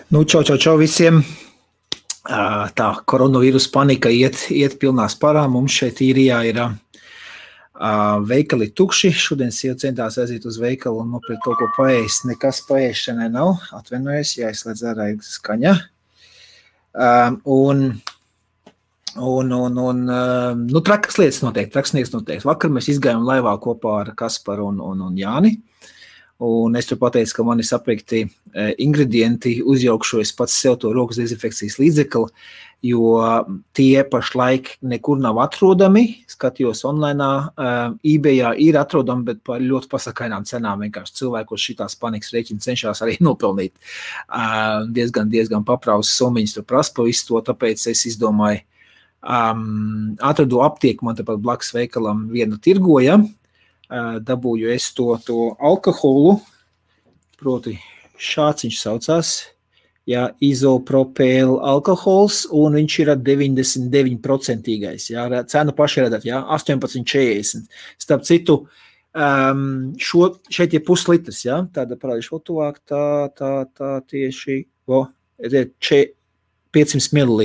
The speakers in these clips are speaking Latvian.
Nu, čau visiem. Tā koronavīrusa panika iet pilnā sparā. Mums šeit īrijā ir veikali tukši. Šodien sieva centās aiziet uz veikalu un nopirkt kaut ko paēst. Nekas paēšanai nav. Atvainojos, jāizslēdz ārā skaņa. Trakas lietas notiek. Vakar mēs izgājām laivā kopā ar Kasparu un Jāni. Un es tur pateicu, ka man ir sapirkti ingredienti, uzjaukšu es pats sev to rokas dezinfekcijas līdzekli, jo tie pašlaik nekur nav atrodami. Skatījos online, eBayā ir atrodami, bet par ļoti pasakainām cenām. Vienkārši cilvēkos šitās panikas rēķina cenšas arī nopelnīt. Diezgan papraus summiņas tur prasa pa visu to, tāpēc es izdomāju, atradu aptieku, man tepat blakus veikalam vienu tirgoja. Dabūju es to alkoholu, proti šāds viņš saucās, izopropēla alkohols, un viņš ir 99%. Cenu paši redzat, 18,40. Starp citu, šeit ir puslitrs, tāda parādīšu tuvāk, tā tieši 500 ml,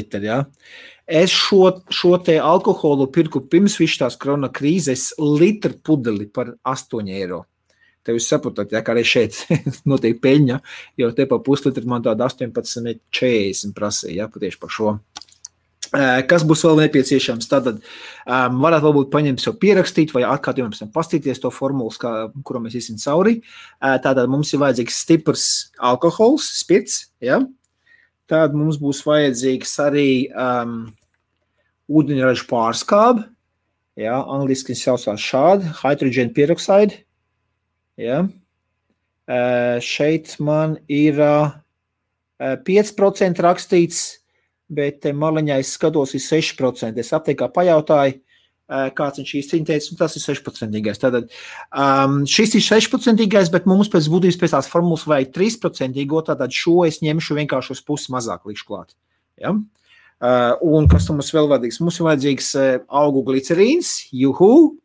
Es šo te alkoholu pirku pirms tās korona krīzes litru pudeli par 8 eiro. Tev jūs saprotat, kā arī šeit notiek peļņa, jo te pa puslitru man tāda 18,40 prasīja, patieši par šo. Kas būs vēl nepieciešams? Tātad varētu varbūt paņemt sev pierakstīt vai atkārt jums pastīties to formulu, kuru mēs iesim cauri. Tātad mums ir vajadzīgs stiprs alkohols, spirts, Tad mums būs vajadzīgs arī ūdeņraža pārskābe, angliski saucās šādi, hydrogen peroxide, Šeit man ir 5% rakstīts, bet maliņā es skatos ir 6%. Es aptiekā pajautāju, kāds viņš īsti teica, un tas ir 6%. Tātad šis ir 6%, bet mums pēc būtības pēc tās formulas vajag 3%, tātad šo es ņemšu vienkārši uz pusi mazāk likšu klāt. Un kas mums vēl vajadzīgs? Mums ir vajadzīgs augu glicerīns, juhu,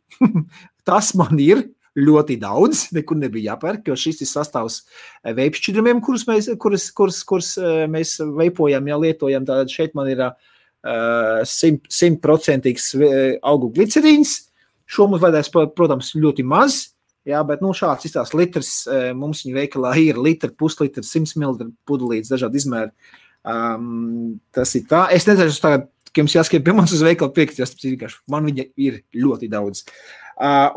tas man ir ļoti daudz, nekur nebija jāpērk, jo šis ir sastāvs veipšķidrumiem, kurus mēs veipojam, lietojam, tātad šeit man ir 100% augu glicerīns. Šo mums vajadzēs, protams, ļoti maz, bet šāds izstās litrs, mums viņa veikalā ir litri, puslitri, 100 ml pudelītes, dažādi izmēri. Tas ir tā. Es nezinu, tagad, ka jums jāskrien pie manis uz veikalu pirkt, man viņa ir ļoti daudz.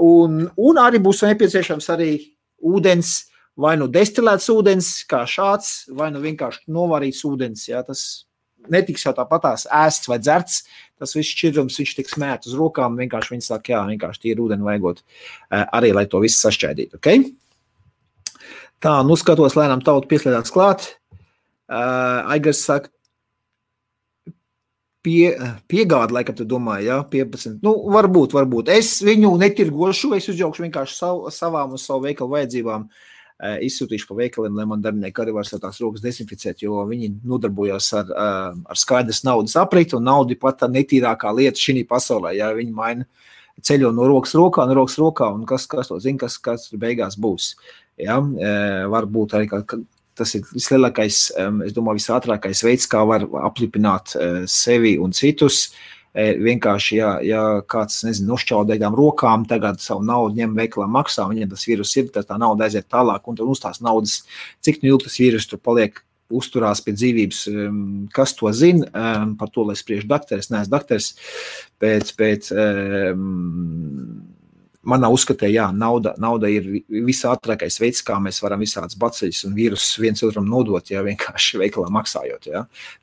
Un arī būs nepieciešams arī ūdens, vai destilēts ūdens, kā šāds, vai vienkārši novārīts ūdens, tas netiks jau tāpatās ēsts vai dzerts, tas viss šķidrums, viņš tiks mēt uz rokām, vienkārši viņi saka, vienkārši tīri ūdeni vajagot arī, lai to visu sašķēdītu, Tā, skatos, lēnām tautu pieslēdāts klāt. Aigars saka, piegāda, laikam tu domāji, 15. Varbūt. Es viņu netirgošu, es uzjaukšu vienkārši savām un savu veikalu vajadzībām. Izsūtīšu pa veikaliem, lai man darbinieki arī var tās rokas dezinficēt, jo viņi nodarbojās ar skaidras naudas apriti, un nauda ir pat tā netīrākā lieta šī pasaulē. Viņi maina ceļo no rokas rokā, un kas to zina, kas beigās būs. Varbūt arī, tas ir vislielākais, es domāju, visātrākais veids, kā var aplipināt sevi un citus. Vienkārši, ja kāds, nošķaudētām rokām tagad savu naudu ņem veikalā maksā, viņiem tas vīrus ir, tad tā nauda aiziet tālāk, un tad uz tās naudas, cik ilgi tas vīrus tur paliek, uzturās pie dzīvības, kas to zina, par to, lai spriež dakteris, neesmu dakteris, bet manā uzskatē, nauda ir visātrākais veids, kā mēs varam visādas baceļus un vīrusus viens otram nodot, vienkārši veikalā maksājot,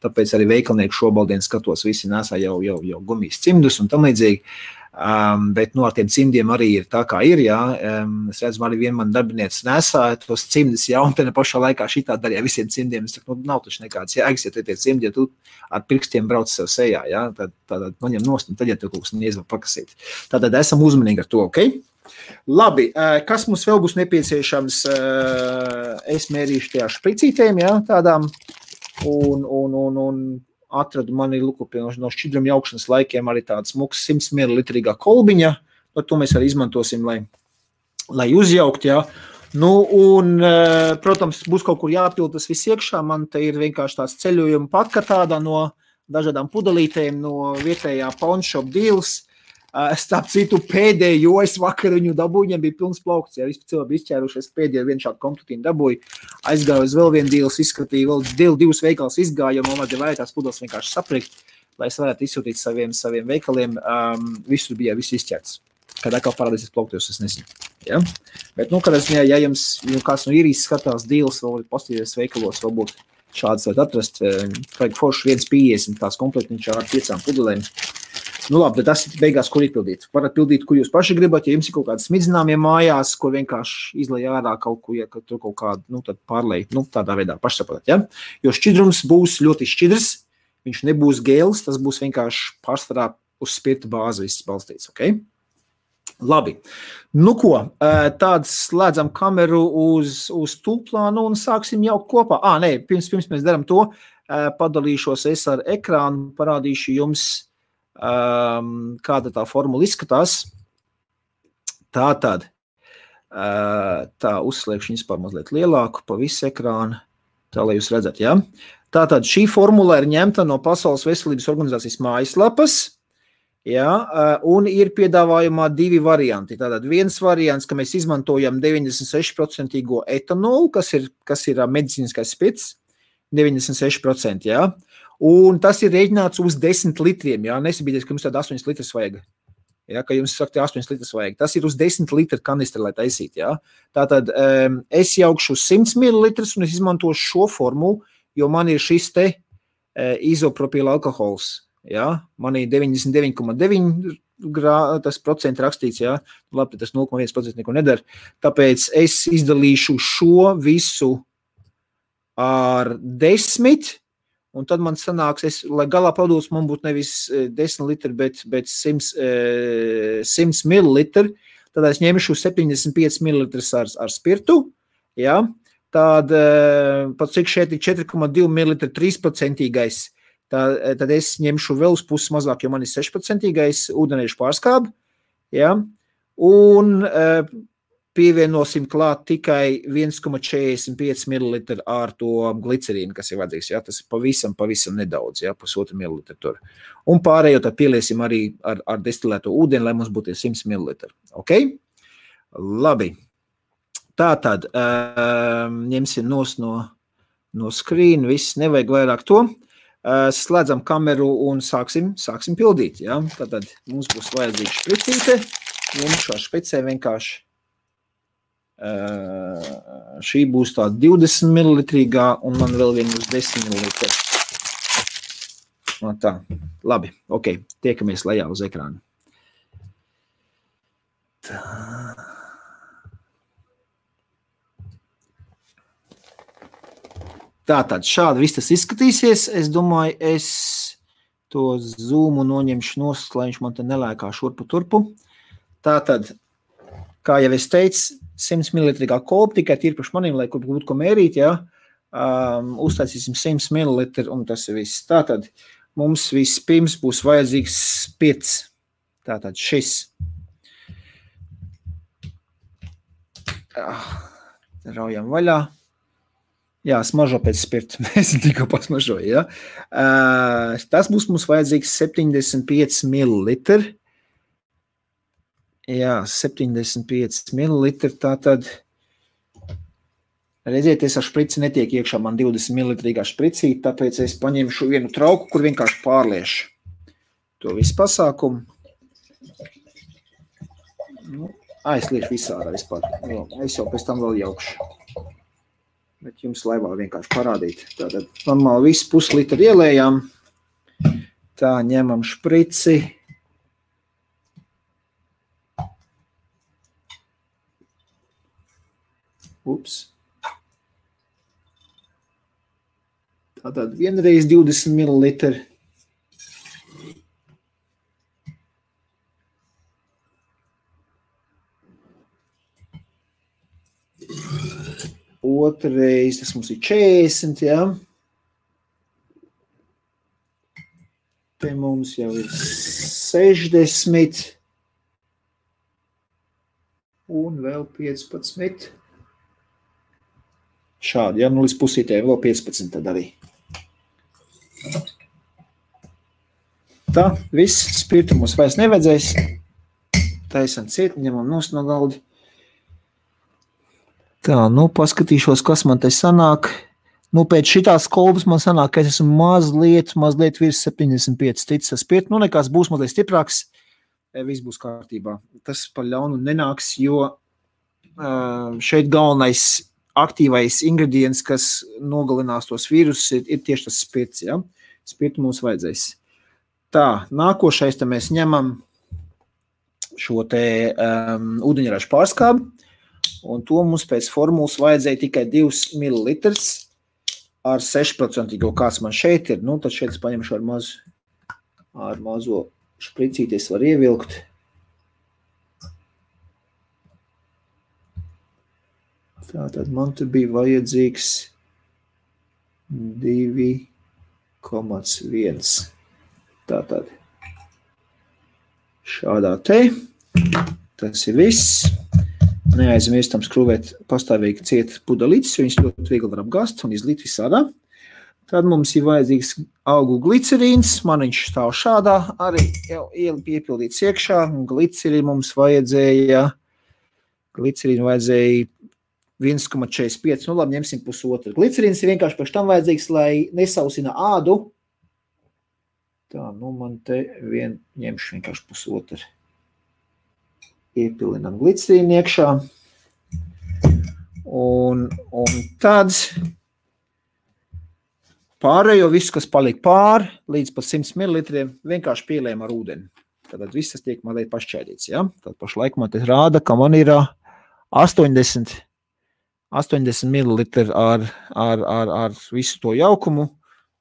Tāpēc arī veikalnieku šobaldien skatos, visi nesā jau gumijas cimdus un tam līdzīgi, bet ar tiem cimdiem arī ir tā, kā ir, Es redzu, arī vien man darbinieci nesā tos cimdus, un te pašā laikā šitā darīja visiem cimdiem, es saku, nav taču nekāds jēgas, ja te tie cimdi, ja tu ar pirkstiem brauc sev sejā, tad noņem nost, un tad, ja tu kaut kas neizvar pakasīt. Tātad esam uzmanīgi ar to, Labi, kas mums vēl būs nepieciešams, es mērīšu tajā špricītēm, tādām, un atradu mani no šķidruma jaukšanas laikiem arī tādas smuks 100 ml kolbiņa, to mēs arī izmantosim, lai uzjaukt, Nu, un, protams, būs kaut kur jāpild tas viss iekšā. Man te ir vienkārši tāds ceļojuma patka tāda no dažādām pudelītēm no vietējā pawnshop deals. Starp citu, pēdējo es vakar viņu dabūju, viņam bija pilns plaukts, ja vispār cilvēki bija izķērušies, pēdējo vienu šādu kompletīnu dabūju, aizgāju uz vēl vienu deals, izskatīju, vēl divus veikals izgāju, jo man vajadzēja tās pudeles vienkārši saprikt, lai es varētu izsūtīt saviem veikaliem, viss izķērts. Kad atkal parādīsies plauktos, es nezinu. Ja? Bet, kādā ziņā, ja jums kāds no īrijas skatās deals, vēl postīties veikalos, varbūt šādas varat atrast, vajag forši 1,50 tās komplektiņš ar 5 pudelēm. Nu labi, bet tas ir beigās, kur izpildīt. Varat pildīt, kur jūs paši gribat, ja jums ir kaut kāds smidzināmie mājās, kur vienkārši izlej ārā kaut ko, ja tur kaut kādu, tad pārlej, tādā veidā pašsaprotat, ja? Jo šķidrums būs ļoti šķidrs, viņš nebūs gēls, tas būs vienkārši pārsvarā uz spirta bāzi viss balstīts, ok? Labi. Nu ko, tāds slēdzam kameru uz tūplānu un sāksim jau kopā. Nē, pirms mēs daram to, padalīšos es ar ekrānu, parādīšu jums, kāda tā formula izskatās. Tātad, uzslēgšu vispār mazliet lielāku pa visu ekrānu, tā lai jūs redzat, ja? Tātad šī formula ir ņemta no Pasaules veselības organizācijas mājaslapas, ja? Un ir piedāvājumā 2 varianti. Tātad viens variants, ka mēs izmantojam 96% etanolu, kas ir medicīniskais spirts, 96%, ja? Un tas ir rēķināts uz 10 litriem, jā, nesabīties, ka jums tāda 8 litras vajag, jā, ka jums saka, 8 litras vajag, tas ir uz 10 litru kanistri, lai taisīt, jā. Tātad es jaukšu 100 ml un es izmantošu šo formulu, jo man ir šis te izopropila alkohols, jā, man ir 99,9 tas procenti rakstīts, jā, labi, tas 0,1% neko nedara, tāpēc es izdalīšu šo visu ar 10, un tad man sanāks, lai galā produkts man būtu nevis 10 litri, bet 100 ml, tad es ņemšu 75 ml ar spirtu, ja? Tad, pat cik šeit ir 4,2 ml 3%, tad es ņemšu vēl uz puses mazāk, jo man ir 6% ūdeniešu pārskābi, ja? Un pievienosim klāt tikai 1,45 ml ar to glicerīnu, kas ir vajadzīgs. Ja? Tas ir pavisam nedaudz, ja? 1,5 ml tur. Un pārējo tad pieliesim arī ar destilēto ūdeni, lai mums būtu 100 ml. Ok? Labi. Tātad ņemsim no screen, viss nevajag vairāk to. Slēdzam kameru un sāksim pildīt. Ja? Tātad mums būs vajadzīga špricīte. Ņemšu ar špricē vienkārši. Šī būs tā 20 ml un man vēl viena uz 10 ml. Tā, labi, ok, tiekamies lejā uz ekrānu. Tā. Tātad šādi viss tas izskatīsies. Es domāju, es to zoomu noņemšu nost, lai viņš man te nelēkā šurpu turpu. Tātad, kā jau es teicu, 100 ml kolba, tikai tīri priekš maniem, lai kur būtu ko mērīt, ja? Uztaisīsim 100 ml un tas ir viss. Tātad mums vispirms būs vajadzīgs spirts. Tātad šis. Raujam vaļā. Jā, smažo pēc spirta. Mēs tikko pasmažoju, ja? Tas būs mums vajadzīgs 75 ml. Jā, 75 ml, tātad, redzieties, ar šprici netiek iekšā man 20 ml špricīt, tāpēc es paņemšu vienu trauku, kur vienkārši pārliešu to visu pasākumu. Es liešu visādā vispār, es jau pēc tam vēl jaukšu, bet jums laivā vienkārši parādīt. Tātad, normāli visu puslitru ielējām, tā ņemam šprici. Ups. Tātad vienreiz 20 ml. Otrreiz, tas mums ir 40, jā. Te mums jau ir 60. Un vēl 15. Šādi, ja, nu līdz pusītēm vēl 15 tad arī. Tā, viss, spirtu mums vairs nevajadzēs. Taisam ciet, ņemam nost no galdi. Tā, nu, paskatīšos, kas man te sanāk. Nu, pēc šitās kolbas man sanāk, ka es esmu mazliet virs 75 ticis ar spirtu. Nu, nekās būs mazliet stiprāks, viss būs kārtībā. Tas par ļaunu nenāks, jo šeit galvenais aktīvais ingredients, kas nogalinās tos vīrusus, ir tieši tas spirts, ja? Spirtu mums vajadzēs. Tā, nākošais te mēs ņemam šo te ūdeņražu pārskābi, un to mums pēc formulas vajadzēja tikai 2 ml ar 6%, kāds man šeit ir. Nu, tad šeit es paņemšu ar mazo špricīties var ievilkt. Tātad man te bija vajadzīgs 2,1. Tātad šādā te. Tas ir viss. Neaizmirstam skrūvēt pastāvīgi ciet pudelītes, jo viņas ļoti viegli var apgāzt un izlīt visādā. Tad mums ir vajadzīgs augu glicerīns. Man viņš stāv šādā. Arī jau piepildīts iekšā. Glicerīnu mums vajadzēja 1,45, nu labi, ņemsim pusotru. Glicerīns ir vienkārši pēc tam vajadzīgs, lai nesausina ādu. Tā, nu man te ņemšu vienkārši pusotru. Iepilinam glicerīnu iekšā. Un tad pārējo visu, kas palika pār, līdz pat 100 ml, vienkārši pielējam ar ūdeni. Tad viss tas tiek mazliet pašķēdīts, ja? Tad pašlaik man te rāda, ka man ir 80 ml ar visu to jaukumu,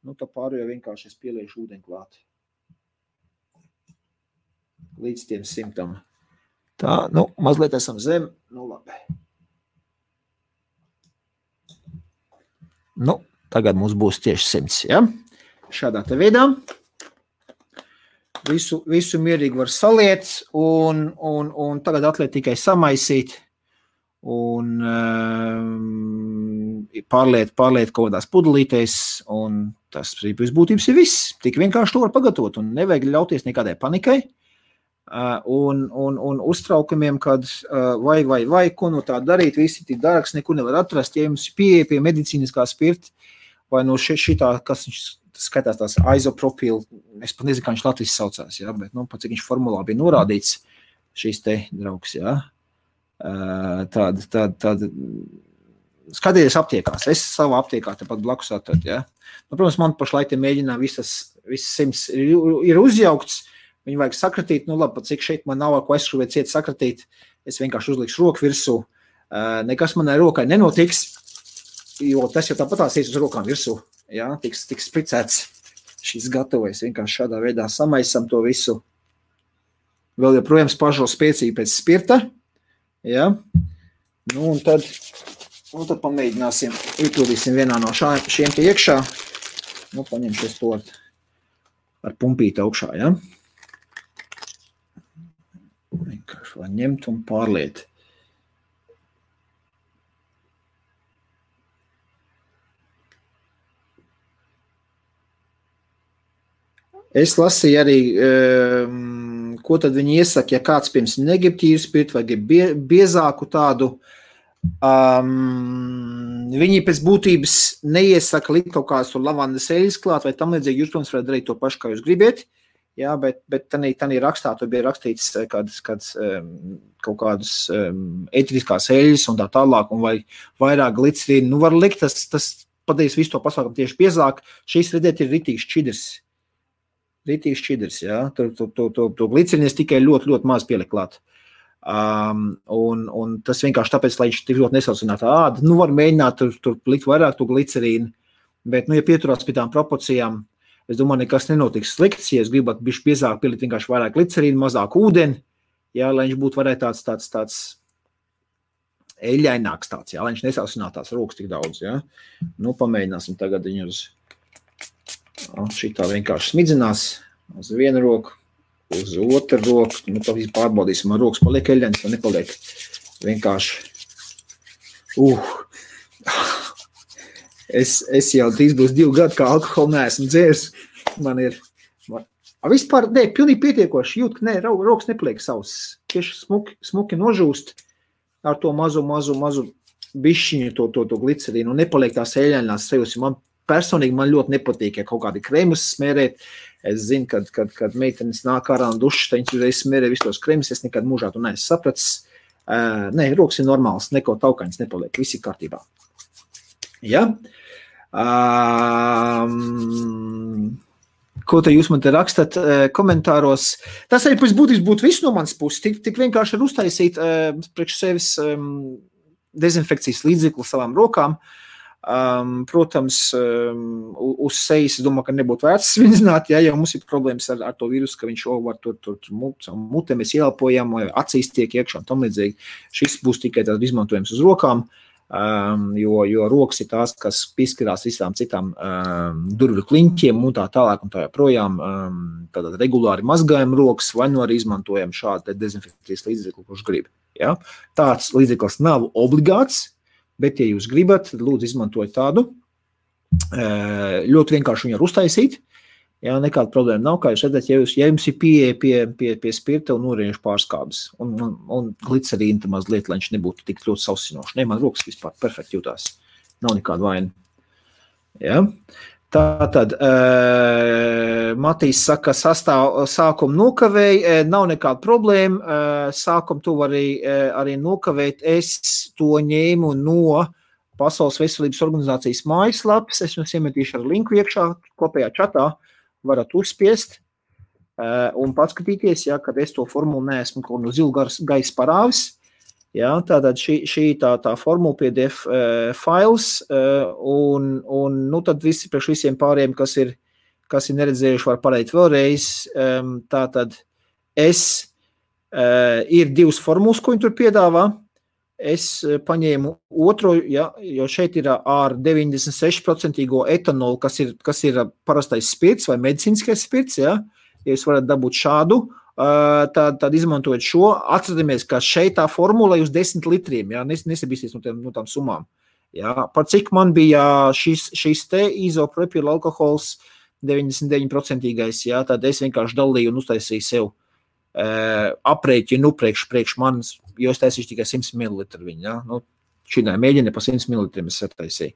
nu tā pārējo vienkārši es pieliešu ūdeni klāt. Līdz tiem 100. Tā, nu, mazliet esam zem, nu labi. Nu, tagad mums būs tieši 100, ja? Šādā te veidā. Visu mierīgi var saliet un tagad atliek tikai samaisīt un pārliet kaut kādās pudelītēs un tas būtības ir viss. Tik vienkārši to var pagatavot un nevajag ļauties nekādai panikai un uztraukumiem, kad vai, ko no tā darīt, visi tik dārgs, nekur nevar atrast, ja jums pieeja pie medicīniskā spirta vai no šitā, kas viņš skatās tās izopropīlu, es pat nezinu, kā viņš Latvijas saucās, ja, bet, nu, pat cik viņš formulā bija norādīts, šīs te draugs, ja, tāda, skatieties aptiekās, es savā aptiekā tepat blakus atradu, ja, nu, protams, man pašlaik te mēģinām viss 100 ir uzjaukts, viņu vajag sakratīt, nu, labi, pat cik šeit man nav, ko aizskrūvēt ciet sakratīt, es vienkārši uzlikšu roku virsū, nekas manai rokai nenotiks, jo tas jau tāpatās ies uz rokām virsū. Jā, tiks spricēts šis gatavojas. Vienkārši šādā veidā samaisam to visu. Vēl joprojām spažo spēcīgi pēc spirta. Jā. Nu, un tad pamēģināsim, iepildīsim vienā no šiem te iekšā. Nu, paņemšies to ar pumpīti augšā, jā. Vienkārši var ņemt un pārliet. Es lasīju arī, ko tad viņi iesaka, ja kāds pirms negrib tīru spirtu vai grib biezāku tādu. Viņi pēc būtības neiesaka likt kaut kādas lavandas eļas klāt vai tam līdzīgi, jūs, protams, varat darīt to pašu, kā jūs gribiet. Jā, bet tanī rakstā tur bija rakstīts kaut kādas ēteriskās eļas un tā tālāk un vai vairāk glicerīnu. Nu, var likt, tas padarīs visu to pasākumu tieši biezāk. Šīs, redziet, ir ritīgs šķidrs. Ritīgs šķidrs, jā. To glicerīnu es tikai ļoti, ļoti maz pieliku klāt. Un tas vienkārši tāpēc, lai viņš tik ļoti nesaucinātu ādu. Nu, var mēģināt tur likt vairāk to glicerīnu, bet, nu, ja pieturās pie tām proporcijām, es domāju, nekas nenotiks slikts, ja es gribētu bišķi biezāk pielikt vienkārši vairāk glicerīnu, mazāk ūdeni, jā, lai viņš būtu varētu tāds eļļaināks tāds, jā, lai viņš nesaucinātu tās rokas tik daudz, jā. Nu, pamēģināsim tagad viņu uz šitā vienkārši smidzinās uz vienu roku, uz otru roku. Nu, tā visu pārbaudīsim, man rokas paliek eļļains vai nepaliek. Vienkārši. Es jau drīz būs 2 gadi, kā alkoholu neesmu dzēris. Man ir... Vispār, pilnīgi pietiekoši jūt, ka rokas nepaliek savs. Tieši smuki nožūst ar to mazu bišķiņu, to glicerīnu, un nepaliek tās eļainās sajūtas. Man personīgi ļoti nepatīk, ja kaut kādi kremus smērēt. Es zinu, kad meitenes nāk ārā un dušas, tad viņas uzreiz smērē visus tos kremus, es nekad mūžā to neesmu sapratis. Rokas ir normāls, neko taukaņas nepaliek, viss ir kārtībā. Ja? Ko te jūs man te rakstat komentāros? Tas arī pēc būtības būtu viss no manas puses. Tik vienkārši ir uztaisīt priekš sevis dezinfekcijas līdzekli savām rokām. Protams, uz sejas, es domāju, ka nebūtu vērts svinzināt, ja mums ir problēmas ar to vīrusu, ka viņš var tur mutē mēs ieelpojam, vai acīs tiek iekšā un tam līdzīgi. Šis būs tikai tāds izmantojums uz rokām. Jo rokas ir tās, kas pieskarās visām citām durvju kliņķiem un tā tālāk un tā joprojām. Tātad regulāri mazgājam rokas vai nu arī izmantojam šādu dezinfekcijas līdzekli, kurš grib. Ja? Tāds līdzeklis nav obligāts, bet, ja jūs gribat, lūdzu izmantojat tādu. Ļoti vienkārši viņu uztaisīt. Jā, nekāda problēma nav, kā jūs redzat, ja jums ir pieeja pie spirta un urīniešu pārskābes un glicerīna tam mazliet, lai viņš nebūtu tik ļoti sausinoši. Man rokas vispār perfekti jūtās. Nav nekāda vaina. Jā. Tātad, Matīs saka, sākumu nokavēja, nav nekāda problēma, sākumu tu arī nokavēt, es to ņēmu no Pasaules veselības organizācijas mājaslapas, es jums iemetīšu ar linku iekšā, kopējā čatā, varat uzspiest un paskatīties, ja, kad es to formulu neesmu kaut no zilu gaisa parāvis. Ja, tātad šī tā formula PDF files un nu tad visi priekš visiem pāriem, kas ir neredzējuši, var parādīt vēlreiz. Tātad ir 2 formulas, ko viņi tur piedāvā. Es paņēmu otro, ja, jo šeit ir ar 96% etanolu, kas ir parastais spirts vai medicīniskais spirts, ja jūs varat dabūt šādu, tad izmantojot šo, atceramies, ka šeit tā formula uz 10 litriem, ja, nesabīsties no tām summām. Ja, par cik man bija šis te izopropīla alkohols 99%, ja, tad es vienkārši dalīju un uztaisīju sev aprēķinu priekš manis, jo es taisīšu tikai 100 ml viņu, ja? Nu, šī mēģina pa 100 ml es sataisīju.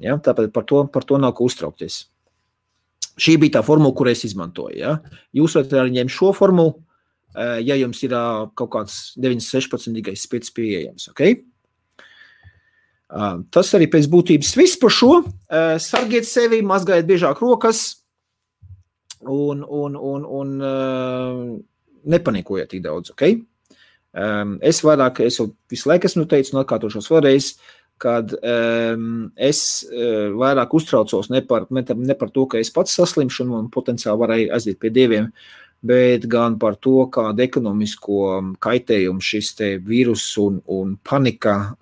Ja? Tāpēc par to nav ko uztraukties. Šī bija tā formula, kur es izmantoju. Ja? Jūs varat arī ņemt šo formulu, ja jums ir kaut kāds 96% spirts pieejams. Okay? Tas arī pēc būtības viss par šo. Sargiet sevi, mazgājiet biežāk rokas un nepanikojiet tik daudz, ok? Es jau visu laiku esmu teicis un atkārtošos vēlreiz, kad es vairāk uztraucos ne par to, ka es pats saslimšu un potenciāli varēju aiziet pie dieviem, bet gan par to, kādu ekonomisko kaitējumu šis te vīrus un panika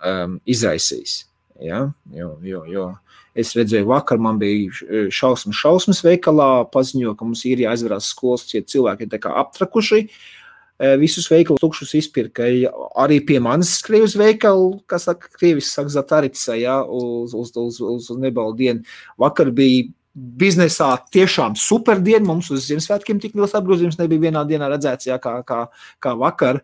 izraisīs. Ja? Jo es redzēju vakar, man bija šausmas veikalā, paziņo, ka mums ir jāizvarās skolas, cilvēki ir tā kā aptrakuši, visus veikalu tukšus izpirka, arī pie manis skrieja uz veikalu, kas saka, krievis saka Zatarica, ja, uz nebalu dienu. Vakar bija biznesā tiešām super diena, mums uz Ziemassvētkiem tik liels apgrozījums nebija vienā dienā redzēts, ja, kā vakar,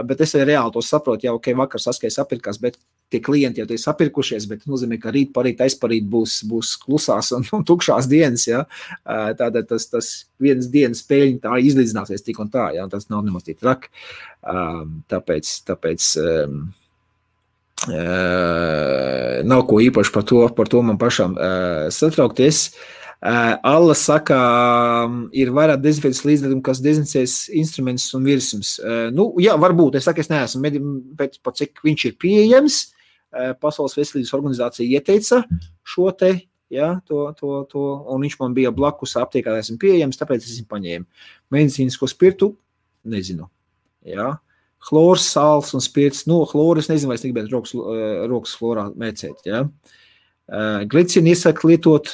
bet es arī reāli to saprotu, ja, ok, vakar saskais apirkās, bet tie klienti jau tie sapirkušies, bet nozīmē, ka rīt, parīt, aizparīt būs klusās un tukšās dienas, ja. Tātad tas vienas dienas peļņa tā izlīdzināsies tik un tā, ja, tas nav nemaz tik traki. Tāpēc nav ko īpaši par to man pašam satraukties. Alla saka, ir vairāk dezinfekcijas līdzekļu, kas dezinficēs instrumentus un virsums. Nu, jā, varbūt, es neesmu, bet pat cik viņš ir pieejams, Pasaules veselības organizācija ieteica šo te, ja, to, un viņš man bija blakus aptiekā, esmu pieejams, tāpēc esmu paņēmu. Medicīnisko spirtu, nezinu, ja. Chlors, sāls un spirts, chloru es nezinu, vai es negribētu rokas chlorā mēcēt, ja. Glicinu iesaka lietot,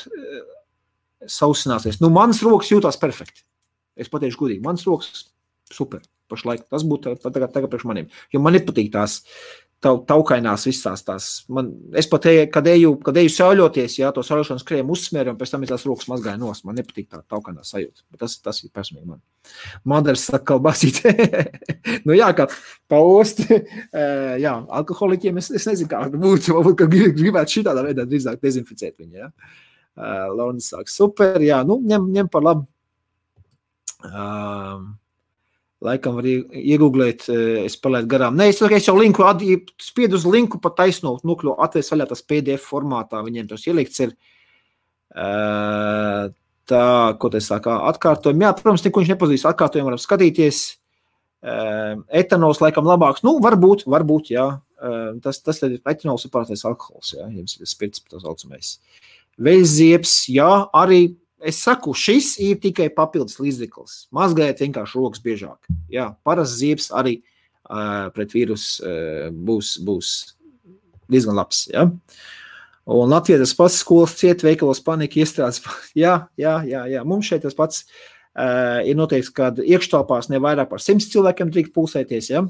sausināsies. Manas rokas jūtās perfekti. Es pateikšu godīgi, manas rokas super, pašlaik. Tas būtu tagad priekš maniem. Jo man nepatīk tās taukainās visās tās. Es pat, kad eju sauļoties, jā, to sauļošanas krēmu uzsmēru, un pēc tam es tās rokas mazgāju nos. Man nepatīk tā taukainā sajūta. Bet tas ir personīgi man. Madars saka, kalbasīt. Nu jā, kā paost. Jā, alkoholiķiem es nezinu, kā būtu. Varbūt, ka gribētu šitādā veidā drīzāk dezinficēt viņu, jā. Launis saka, super, jā, nu, ņem par labu. Laikam var iegooglēt, es palaidu garām. Nē, es jau linku, spiedu uz linku pa taisno nukļu, atvēs vaļā tas PDF formātā, viņiem tos ielikts ir. Tā, ko te saka, atkārtojumi. Jā, protams, neko viņš nepazīs, atkārtojumi varam skatīties. Etanols laikam labāks. Nu, varbūt, jā. Tas ir etanols ir pārtais alkohols, jā, jums ir spirts, tā saucamais. Veļziebs, jā, arī. Es saku, šis ir tikai papildus līdzeklis. Mazgājiet vienkārši rokas biežāk. Jā, parasts ziebs arī pret vīrus būs diezgan labs. Ja? Un Latvijā tas pats skolas ciet, veikalos panika iestrādes. Jā. Mums šeit tas pats ir noteikts, kad iekštelpās ne vairāk par 100 cilvēkiem drīkst pulsēties. Ja?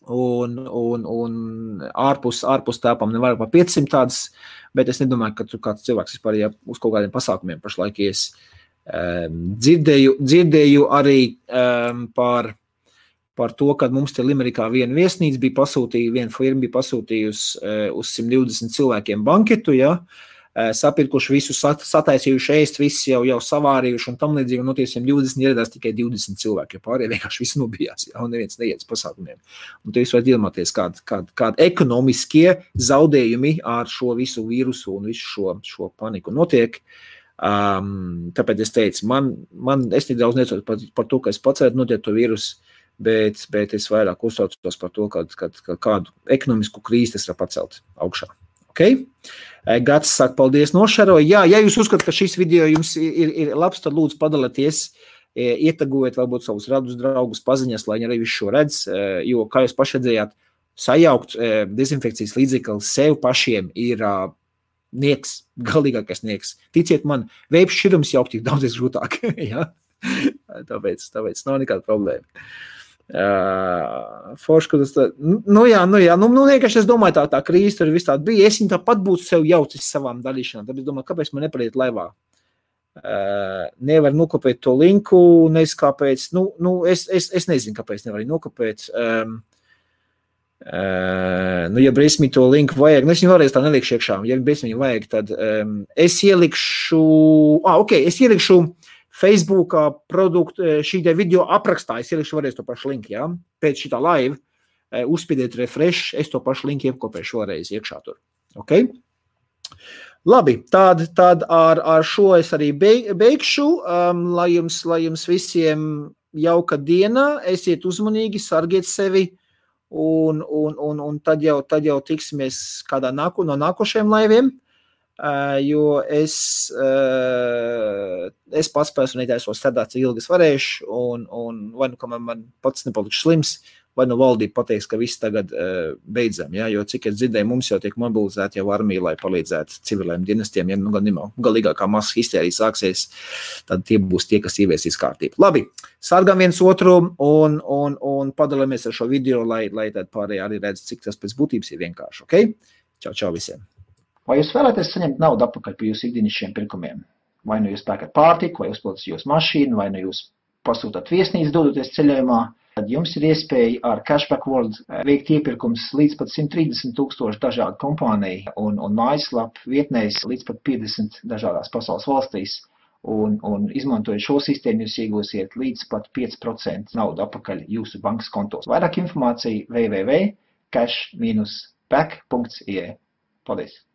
Un ārpus telpām ne vairāk par 500 tādas, bet es nedomāju, ka tur kāds cilvēks vispār uz kaut kādiem pasākumiem pašlaik ies. Dzirdēju arī par to, kad mums te Limerikā viena viesnīca viena firma bija pasūtījusi uz 120 cilvēkiem banketu, ja? Sapirkuši visu, sataisījuši ēst, visi jau savārījuši un tam līdzīgi, un no tie 120 ieradās tikai 20 cilvēki, jo pārējie vienkārši visi nobijās, ja? Un neviens neiet uz pasākumiem. Un te jūs varat iedomāties, kādi ekonomiskie zaudējumi ar šo visu vīrusu un visu šo paniku notiek. Tāpēc es teicu, es nedaudz necotu par to, ka es pats varētu notiek to vīrusu, bet es vairāk uztraucos par to, ka kādu ekonomisku krīzi tas var pacelt augšā. Okay? Gats saka, paldies nošaroju. Jā, ja jūs uzskatāt, ka šis video jums ir labs, tad lūdzu padalieties, ietagojiet varbūt savus radus draugus paziņas, lai viņi arī visu šo redz, jo, kā jūs paši redzējāt, sajaukt dezinfekcijas līdzekli sev pašiem ir nieks, galīgākais nieks. Ticiet man, veips šķirums jaukt ir daudz grūtāk. Ja? Tāpēc nav nekāda problēma. Forši, vienkārši es domāju, tā krīze tur viss tāda bija, es viņu tāpat būtu sev jaucis savām darīšanām, tad es domāju, kāpēc man nepariet laivā, nevar nokopēt to linku, nezinu kāpēc, es nezinu, kāpēc nevar nokopēt, ja Brismi to linku vajag, es viņu vēlreiz tā nelikšu iekšā, ja Brismi vajag, tad es ielikšu Facebookā šī video aprakstā, es ielikšu varēs to pašu linku, ja? Pēc šitā live, uzspiediet refresh, es to pašu linku iekopēšu vēlreiz iekšā tur. Okay? Labi, tad ar šo es arī beigšu, lai jums visiem jauka diena, esiet uzmanīgi, sargiet sevi, un tad jau tiksimies kādā no nākošajiem laiviem. Jo es pats personīgi esmu strādāt, cik ilgi es varēšu, un vai nu, kamēr man pats nepalikšu slims, vai nu valdība pateiks, ka viss tagad beidzam, ja? Jo cik es dzirdēju, mums jau tiek mobilizēti jau armija, lai palīdzētu civiliem dienestiem, ja galīgākā masa histērija sāksies, tad tie būs tie, kas ieviesīs kārtību. Labi, sargam viens otru un padalāmies ar šo video, lai tad pārējie arī redz, cik tas pēc būtības ir vienkārši, ok? Čau visiem! Vai jūs vēlaties saņemt naudu atpakaļ par jūsu ikdienišķiem pirkumiem? Vai nu jūs pērkat pārtiku, vai uzpildat jūsu mašīnu, vai nu jūs pasūtat viesnīcu dodoties ceļojumā, tad jums ir iespēja ar Cashback World veikt iepirkums līdz pat 130,000 dažādu kompāniju un mājaslapu vietnēs līdz pat 50 dažādās pasaules valstīs. Un izmantojot šo sistēmu, jūs iegūsiet līdz pat 5% naudu atpakaļ jūsu bankas kontos. Vairāk informācija www.cash-back.ie. Paldies!